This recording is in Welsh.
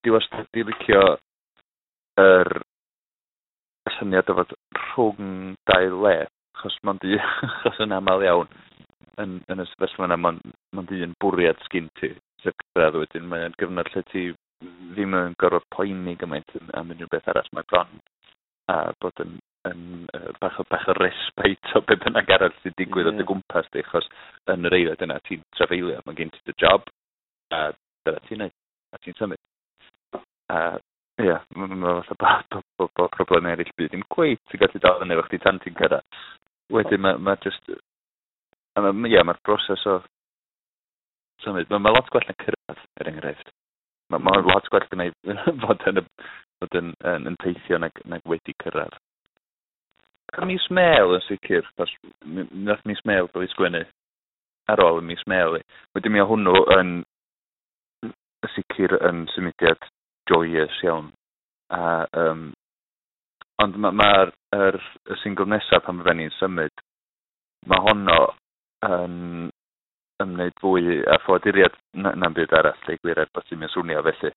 Dwi wastad 'di licio yr syniad o fod rhwng dau le, achos mond un, achos yn aml iawn yn y sefyllfa yna, mond un bwriad sgin ti, sef cyrraedd. Wedyn mae o'n gyfnod lle ti ddim yn gorfod poeni gymaint am unrhyw beth arall. Mae bron a bod yn bach o respite o be bynnag arall sy'n digwydd o dy gwmpas di, achos yn yr eiliad yna ti'n trafeilio, mae gen ti dy job, a dyna ti'n neud, a ti'n symud. A ie, mae fatha bod problemau eraill byd ddim cweit yn gallu dal fyny efo chdi tan ti'n cyrraedd. Wedyn mae just, ie, mae'r broses o symud, mae lot gwell na cyrraedd, er enghraifft. Mae lot gwell gynna i fod yn teithio nag wedi cyrraedd. Mis Mel yn sicr, achos nath Mis Mel gael ei sgwennu ar ôl y Mis Mel i. Wedyn mi o hwnnw yn sicr yn symudiad joyous iawn. A, ond mae'r y single nesaf pan fydden ni'n symud, mae honno yn ymwneud fwy â ffoaduriad na'm byd arall, deud gwir, er bod ti'n swnio felly.